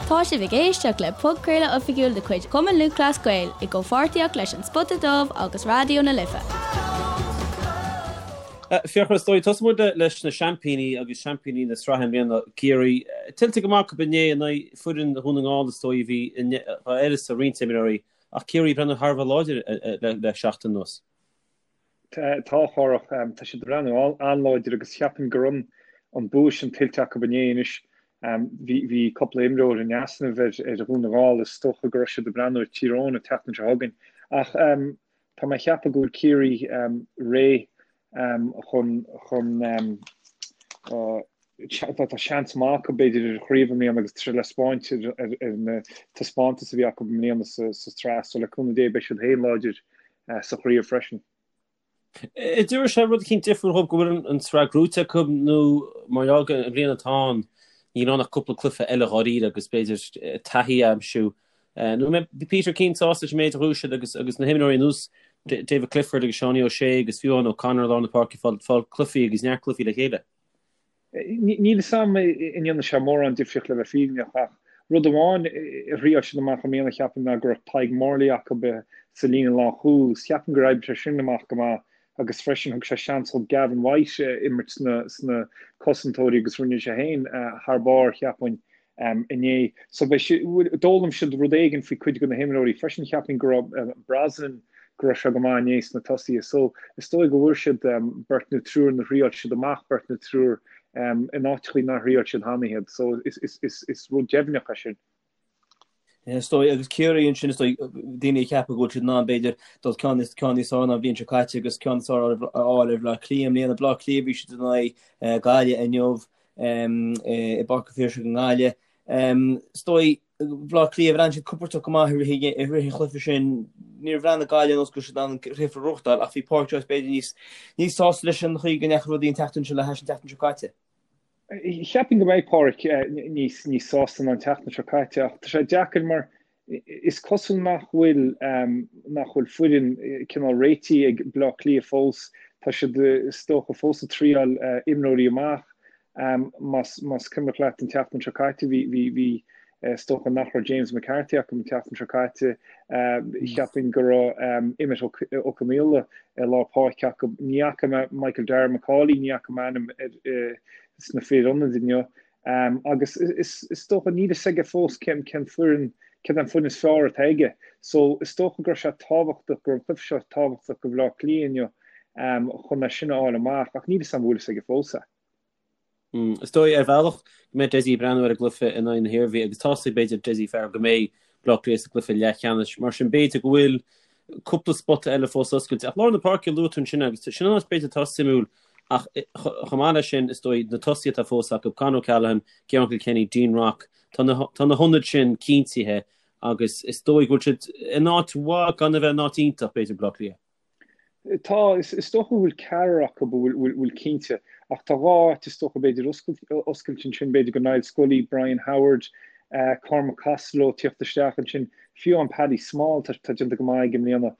Tá sibh ag éisteacht le podchraoladh oifigiúil de chuid Chumann Lúthchleas Gael i gcomhpháirtíocht leis An Spota Dubh agus Raidió na Life. Fiachra, is dóigh, tosóidh muid leis na seaimpíní agus seaimpíní na sraithe i mbliana, Ciarraí. Tuillte go maith acu inné in aghaidh foireann Dhún na nGall is dóigh a bhí d'uireasa roinnt imreoirí ach Ciarraí ag breathnú thar a bheith láidir le seachtain anuas. Tá, a Chárthach. Tá siad ag breathnú an-láidir agus cheapfainn go raibh an bua sin tuillte acu inné anois. Bhí bhí cúpla imreoir in easnamh ar ar Dhún na nGall. Is dócha go raibh siad ag breathnú ar Tír Eoghain an tseachtain seo chugainn. Ach tá mé ag ceapadh go bhfuil Ciarraí réidh chun chun tá seans maith acu b'fhéidir ar an chraobh i mbliana agus tá sé le spáint ar ar na taispeántais a bhí acu i mbliana sa sa tsraith. So le cúnamh Dé beidh siad féin láidir sa chraobh freisin. An dtabharfaidh sé rud eicínt difriúil dhóibh go bhfuil an tsraith gnóite acu nó mar gheall gur an bhliain atá ann níl ann ach cúpla cluiche eile dháiríre agus b'fhéidir taithí a aimsiú. Nó an mbeidh Peter Keane sásta leis an méid a ghnóthaigh siad agus agus na himreoirí ar nós David Clifford agus Seánie O'Shea agus fiú amháin O'Connor i lár na páirce ag fáil cluichí agus neart cluichí le chéile. Níl 'fhios a'm an ndéanfaidh sé mórán difríocht le bheith fírinneach ach rud amháin a thriáil siad amach i mbliana cheapfainn ná go raibh Tadhg Morley acu sa líne lánchúil agus cheapfainn gur oibrigh sé sin amach go maith agus freisin thug sé seans do Gavin White imirt sna cosantóirí agus rinne sé féin thar barr cheapfainn. inné. So beidh siad, d'fhoghlaim siad rud éigin faoi cuid de na himreoirí freisin. Cheapfainn go raibh Brosnan, go raibh sé go maith inné sna tosaithe. So is dóigh go bhfuair siad beirt nó triúr nó thriáil siad amach beirt nó triúr in áiteachaí nár thriáil siad cheana iad. So is rud deimhneach é sin. Is dóigh, agus Ciarraí ansin, is dóigh, daoine ag ceapadh go bhfuil siad in ann, b'fhéidir, dul ceann níos ceann níos fearr ná an bhliain seo caite agus ceann níos fearr a fháil ar Bhleá Cliath i mbliana. Bleá Cliath, bhí siad in aghaidh Gaillimh inniu. i bPáirc an Phiarsaigh i nGaillimh. Is dóigh, Bhleá Cliath, bhreathnaigh siad compordach go maith i rith an chluiche sin. Níor bhreathnaigh Gaillimh ar nós go raibh siad in ann an cluiche a ghnóthachtáil ach bhí Pádraic Joyce b'fhéidir níos níos sásta leis an chaoi go ndeachaigh rudaí an tseachtain seo le hais an tseachtain seo caite. Cheapfainn go mbeidh Pádraic níos níos sásta ná an tseachtain seo caite ach tá sé deacair mar is cosúil nach bhfuil nach bhfuil foireann cineál réitithe ag Bleá Cliath fós. Tá siad is dócha fós ag triáil imreoirí amach. Más más cuimhneach leat an tseachtain seo caite bhí bhí bhí is dócha nach raibh James McCarthy acu an tseachtain seo caite. Cheapfainn go raibh Emmet Ó Conaola i lár páirce acu. Ní fhaca mé Michael Darragh Macauley, ní fhaca mé a ainm sna fir ionaid inniu. Agus is dócha, níl fhios aige fós cén cén foireann, céard é an foireann is fearr atá aige. So is dócha go raibh sé tábhachtach, go raibh an cluiche seo tábhachtach do Bhleá Cliath inniu chun é sin a fháil amach ach níl fhios agam an bhfuil fhios aige fós é. Is dóigh, ar bhealach, go mbeidh Dessie ag breathnú ar an gcluiche in aghaidh na hIarmhí agus tá's ag, b'fhéidir, Dessie Farrell go mbeidh Bleá Cliath sa gcluiche leathcheannais. Mar sin, b'fhéidir go bhfuil cúpla spota eile fós oscailte. Ach lár na páirce a luaigh tú ansin agus sin an áit b'fhéidir atá suimiúil Ach chomh maith leis sin, is dóigh, na tosaithe atá fós acu, Con O'Callaghan, Ciarán Kilkenny, Dean Rock, tá na tá na hionaid sin cinntithe agus is dóigh go bhfuil siad in áit mhaith gan a bheith in áit iontach, b'fhéidir, Bleá Cliath. Tá, is dócha go bhfuil ceathrar acu a bhfuil bhfuil cinnte, ach tá dhá áit is dócha b'fhéidir oscailte ansin, b'fhéidir go Niall Scully, Brian Howard, Cormac Costello tíocht isteach ansin, fiú an Paddy Small, tá déanta go maith aige i mbliana.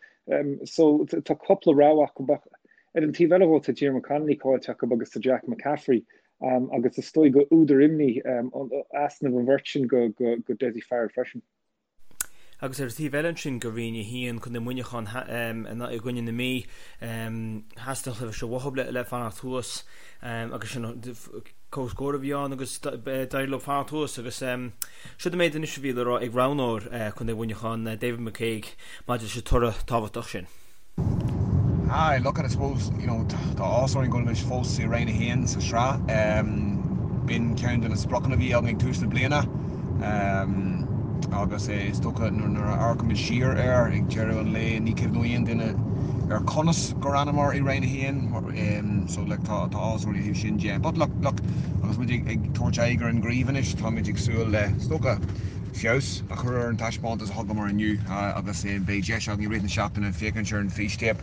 So tá cúpla rogha acu ach Ar an taobh eile dhó tá Diarmuid Connolly caillte acu agus tá Jack McCaffrey agus is dóigh gur údar imní easnamh an bheirt sin go Dessie Farrell freisin. Agus ar an taobh eile ansin go Roinn 1, Contae Mhuineacháin i gcoinne na Mí, theastaigh an cluiche seo uathu le fanacht thuas agus sin comhscór a bhí ann agus d'éirigh leo fanacht thuas agus siod an méid anois a bhí le rá ag roghnóir Contae Mhuineacháin, David McCague, maidir leis an toradh tábhachtach sin. Aye, look, I suppose, you know, tá áthas orainn go bhfuil muid fós i Roinn 1 sa sraith. B'in ceann de na spriocanna a bhí againn ag tús na bliana agus is dócha nuair a amharcaimid siar air ag deireadh an lae ní cuimhneoidh aon duine ar conas gur fhanamar i Roinn 1. So like tá áthas orainn ó thaobh sin de. But look, look, agus muid ag tabhairt aghaidh ar an gcraobh anois táimid ag súil le, is dócha, feabhas a chur ar an taispeántas a thugamar inniu agus beidh deis againn i rith na seachtaine féachaint ar an bhfístéip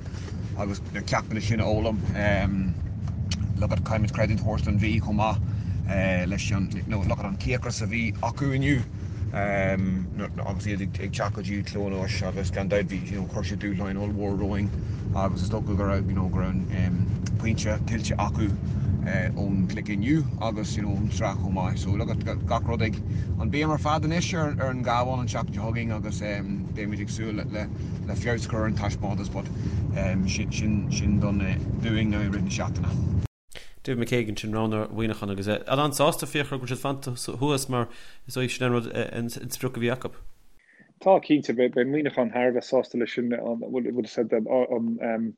agus na ceachtanna sin a fhoghlaim. Look at caithfimid creidiúint a thabhairt don Mhí chomh maith leis an look at an cíocras a bhí acu inniu agus iad ag teacht go dtí Cluain Eois agus gan dabht bhí you know chuir siad dúshláin ollmhór romhainn agus is dócha go raibh you know go raibh an pointe tuillte acu. Ón gcluiche inniu agus you know ón tsraith chomh maith. So look at gach rud ag an béim ar fad anois ar ar an gCabhán an tseachtain seo chugainn agus beimid ag súil le le feabhas a chur ar an taispeántas but sin sin sin don dúinn now i rith na seachtaine. David McCague ansin roghnóir Mhuineacháin agus é an-sásta Fiachra go bhfuil siad fanta thuas mar is dóigh sin an rud an sprioc a bhí acu. Tá cinnte, beidh Muineachán thar a bheith sásta leis sin an bhfuil a fhios agat an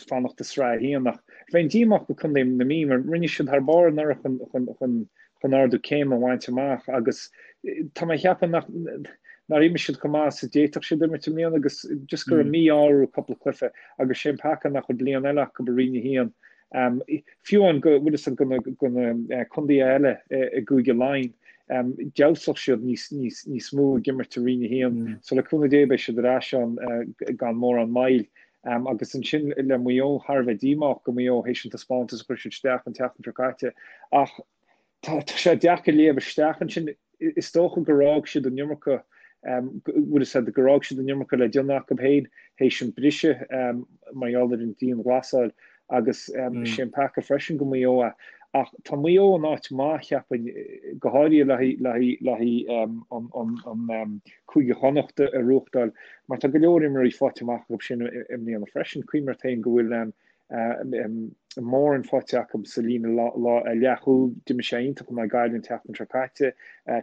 fanacht i Sraith 1 ach bheinn díomách go Contae na Mí mar rinne siad thar barr anuraidh chun, chun, chun ardú céime a bhaint amach agus tá mé ag ceapadh nach nár imir siad chomh maith is a d'fhéadfadh siad imirt i mbliana agus just go raibh mí-ádh orthu cúpla cluiche agus sé an peaca nach bhfuil bliain eile acu i Roinn 1. Fiú amháin go bhfuil a fhios agat go na contaetha eile i gCúige Laighean, d'fheabhsódh siad níos mó ag imirt i Roinn 1. So le cúnamh Dé beidh siad ar ais ann gan mórán moill. Agus ansin le Maigh Eo, thar a bheith díomách go Maigh Eo théis an taispeántas a chuir siad isteach an tseachtain seo caite. Ach tá sé deacair léamh isteach ansin. Is dócha gur fhág siad an iomarca, bhfuil a fhios agat, gur fhág siad an iomarca le déanamh acu féin théis an briseadh mar gheall ar an dianghlasáil agus sé an peaca freisin go Maigh Eo é. Ach tá Maigh Eo in áit maith, cheapfainn, go háirithe le haghaidh an Cúige Chonnacht a ghnóthachtáil mar tá go leor imreoirí faighte amach acu sin i mbliana freisin. Cuimhnigh ort féin go bhfuil Moran faighte acu sa líne leathchúil. D'imir sé iontach in aghaidh Gaillimh an tseachtain seo caite.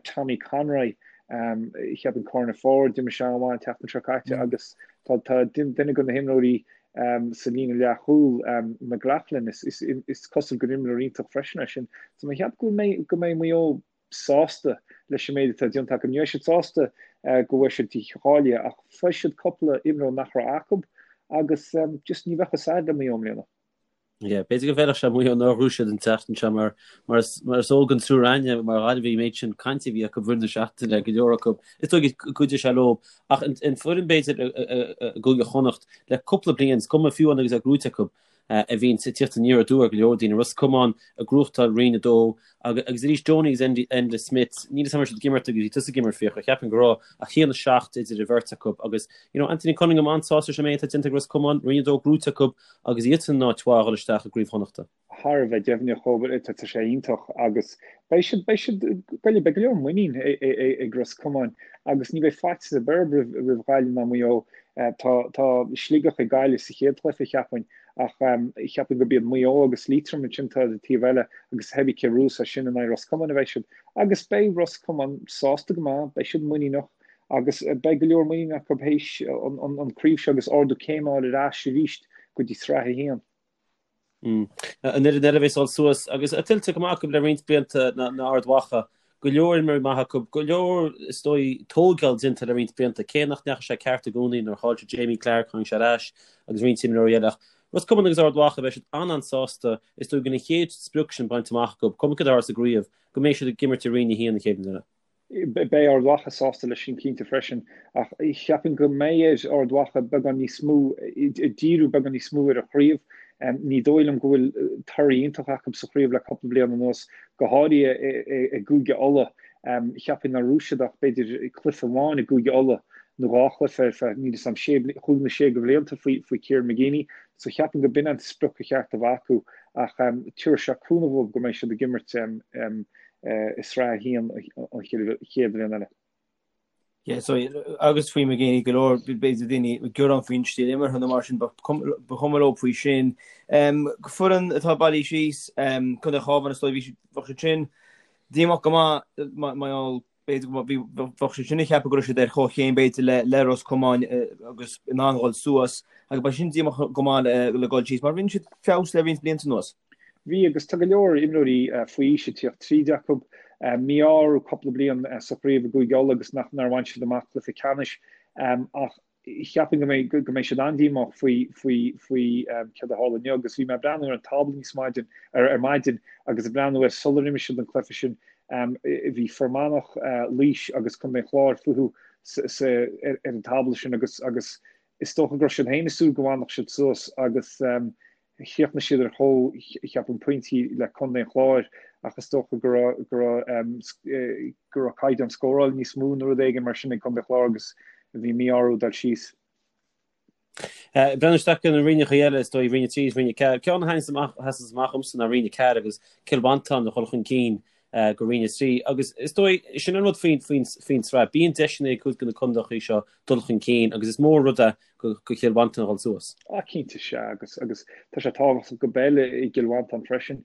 Tommy Conroy, cheapfainn corner forward, d'imir sé an-mhaith an tseachtain seo caite agus tá duine de na himreoirí sa líne leathchúil, McLaughlin, is cosúil gur imreoir iontach freisin é sin. So mé ag ceapadh go mbeidh Maigh Eo sásta leis an méid atá déanta acu. Ní bheidh siad sásta go bhfuil siad dícháilithe ach fuair siad cúpla imreoir nach raibh acu agus just ní bheadh a fhios a'd le Maigh Eo i mbliana. Yeah, b'fhéidir go bhfeilfeadh sé Maigh Eo nár ghnóthaigh siad an tseachtain seo mar mar is mar is eol don triúr againne mar Ghaillimhigh an méid sin cainte a bhí acu roimh na seachtaine go leor acu. Is dóigh go gcuideoidh sé leo ach an foireann b'fhéidir i gCúige Chonnacht le cúpla bliain is cuma fiú amháin agus é gnóite acu a bhíonn ag tíocht aniar aduaidh ar go leor daoine, Ros Comáin ag gnóthachtáil Roinn 2 agus arís Donie agus Enda Smith, níl a fhios agam an raibh siad ag imirt agus bhí tusa ag imirt Fiachra, cheapfainn go raibh ach 1-7 idir an bheirt acu agus you know Anthony Cunningham an-sásta leis an méid atá déanta ag Ros Comáin, Roinn 2 gnóite acu agus iadsan in áit mhaith a dhul isteach i gCraobh Chonnachta. Thar a bheith deimhneach chomh, tá sé iontach agus beidh siad, beidh siad, beidh go leor muinín ag Ros Comáin agus ní bheidh faitíos ar bith orthu roimh Ghaillimh ná Maigh Eo. Tá, tá Sligeach ag Gaillimh sa chéad chluiche, cheapfainn, ach cheapfainn gurb iad Maigh Eo agus Liatroim ansin atá ar an taobh eile agus thébí cé bhuafas as sin in aghaidh Ros Comáin a bheidh siad. Agus beidh Ros Comáin sásta go maith, beidh siad muiníneach agus beidh go leor muinín acu théis an craobh seo agus ardú céime a fháil ar ais arís go dtí Sraith 1. An fhoireann eile a bheas ag dul suas agus é tuillte go maith acu le roinnt blianta ná Ard Mhacha. Go leor imreoirí maithe acu, go leor is dóigh tógáil déanta le roinnt blianta, cé nach ndeachaigh sé ceart i gcónaí nuair a chaill siad Jamie Clarke, tháinig sé ar ais agus roinnt imreoirí eile ach Ros Comáin agus Ard Mhacha beidh siad an-an-sásta is dóigh go bhfuil an chéad sprioc sin bainte amach acu, cuma céard a tharlós sa gcraobh, go mbeidh siad ag imirt i Roinn 1 an chéad bhliain eile. Beidh Ard Mhacha sásta leis sin cinnte freisin, ach cheapfainn go mbeidh ar Ard Mhacha beagán níos mó, díriú beagán níos mó ar an chraobh. Ní dóigh liom go bhfuil toradh iontach acu sa chraobh le cúpla bliain anuas, go háirithe i gCúige Uladh. Cheapfainn nár bhuaigh siad ach b'fhéidir cluiche amháin i gCúige Uladh nó dhá chluiche ar feadh, níl 'fhios a'm, sé, chúig nó sé de bhlianta faoi Kieran McGeeney. So cheapfainn go b'in an sprioc ba cheart a bheith acu ach tabharfaidh sé cúnamh dóibh go mbeidh siad ag imirt i Sraith 1 an chéad bhliain eile. Yeah, so, agus faoi McGeeney go leor, b'fhéidir daoine ag gearán faoin stíl imeartha nó mar sin, ba chuma leo faoi sin. Foireann atá bailithe síos, Contae an Chabháin, is dóigh, bhí siad, bheadh siad sin díomách go maith, mar gheall, b'fhéidir go bheadh siad sin ag ceapadh go raibh siad ar chomhchéim b'fhéidir le le Ros Comáin agus in ann dhul suas agus beidh sin díomách go maith le dhul síos mar rinne siad feabhas le roinnt blianta anuas. Bhí agus tá go leor imreoirí faoi aois ag tíocht tríd acu. Mí-ádh orthu cúpla bliain sa chraobh i gCúige Uladh agus nach nár bhain siad amach cluiche ceannais ach cheapfainn go mbeidh go mbeidh siad an-díomách faoi faoi faoi céard a tharla inniu agus bhí mé ag breathnú ar an tábla níos maidin ar ar maidin agus ag breathnú ar sular imir siad an cluiche sin bhí Fear Manach, Laois agus Contae an Chláir fúthu sa sa ar ar an tábla sin agus agus is dócha go raibh siad féin ag súil go bhfanfadh siad suas agus Chríochnaigh siad ar chomh, cheapfainn, pointí le Contae an Chláir ach is dócha go raibh, go raibh, go raibh caighdeán scóráil níos mó nó rud éigin mar sin ag Contae an Chláir agus bhí mí-ádh orthu dul síos. Breathnú isteach ar na roinneacha eile, is dóigh, Roinn 3 is Roinn 4. Ceann a thaitníonns amach, a sheasanns amach dhomsa ná Roinn 4 agus Cill Mhantáin a dhul chun cinn go Roinn 3. Agus is dóigh, sin an rud faoin, faoin, faoin tsraith. Bíonn deiseanna ag cuid de na contaetha seo dul chun cinn agus is mór rud é go, go Chill Mhantáin a dhul suas. Ah, cinnte, sea, agus, agus tá sé tábhachtach go peil i gCill Mhantáin freisin.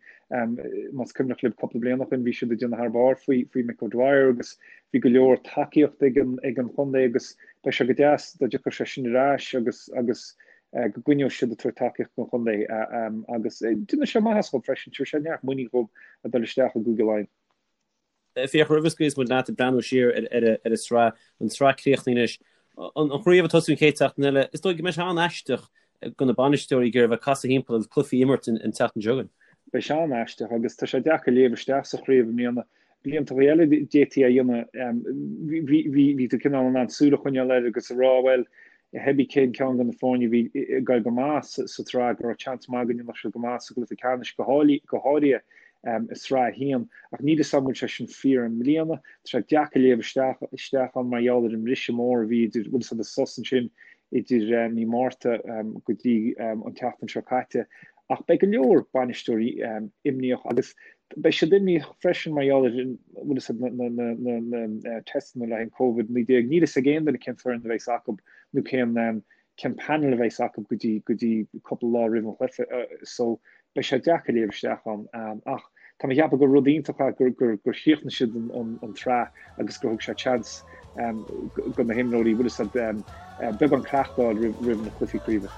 Más cuimhneach libh cúpla bliain ó shin bhí siad ag déanamh thar barr faoi, faoi Mick O'Dwyer agus bhí go leor tacaíocht ag an, ag an chontae agus Beidh sé go deas dá dtiocfadh sé sin ar ais agus agus go gcoinneodh siad ag tabhairt tacaíocht don chontae agus déanfaidh sé maitheas dhóibh freisin, tabharfaidh sé neart muinín dhóibh a dul isteach i gCúige Laighean. Fiach, roimh a scaoilfeas muid leat ag breathnú siar ar an tsraith, an tsraith críochnaithe anois, an chraobh ag tosú an chéad tseachtain eile, is dóigh go mbeidh sé an-aisteach do na bainisteoirí ag iarraidh a bheith ag casadh thimpeall agus cluichí a imirt an tseachtain seo chugainn. Beidh sé an-aisteach agus tá sé deacair léamh isteach sa chraobh i mbliana. Blianta eile d'fhéadfaí a dhéanamh, bhí tú cineál in ann súil a choinneáil air agus a rá, bhuel, cibé cén ceann de na foirne a bhí ag goil go maith sa tsraith, go raibh seans maith go ndéanfadh siad go maith sa gcluiche ceannais, go háirithe i sraith a haon. Ach níl 'fhios a'm an bhfuil sé sin fíor i mbliana. Tá sé deacair léamh isteach isteach ann mar gheall ar an mbriseadh mór a bhí idir, bhfuil 'fhios a'd, an sos ansin idir mí Márta go dtí an tseachtain seo caite. Ach beidh go leor bainisteoirí imníoch agus beidh siad imníoch freisin mar gheall ar bhfuil 'fhios a'd na teisteanna le haghaidh an Covid-19. Níl 'fhios ag aon duine cén foireann a bheas acu nó cén cén panel a bheas acu go dtí go dtí cúpla lá roimh an chluiche so beidh sé deacair léamh isteach ann. Ach tá mé ag ceapadh gur rud iontach é gur gur gur chríochnaigh siad an an an tsraith agus gur thug sé chance do na himreoirí bhfuil 'fhios a'd beagán cleachtadh a fháil roimh na cluichí craoibhe.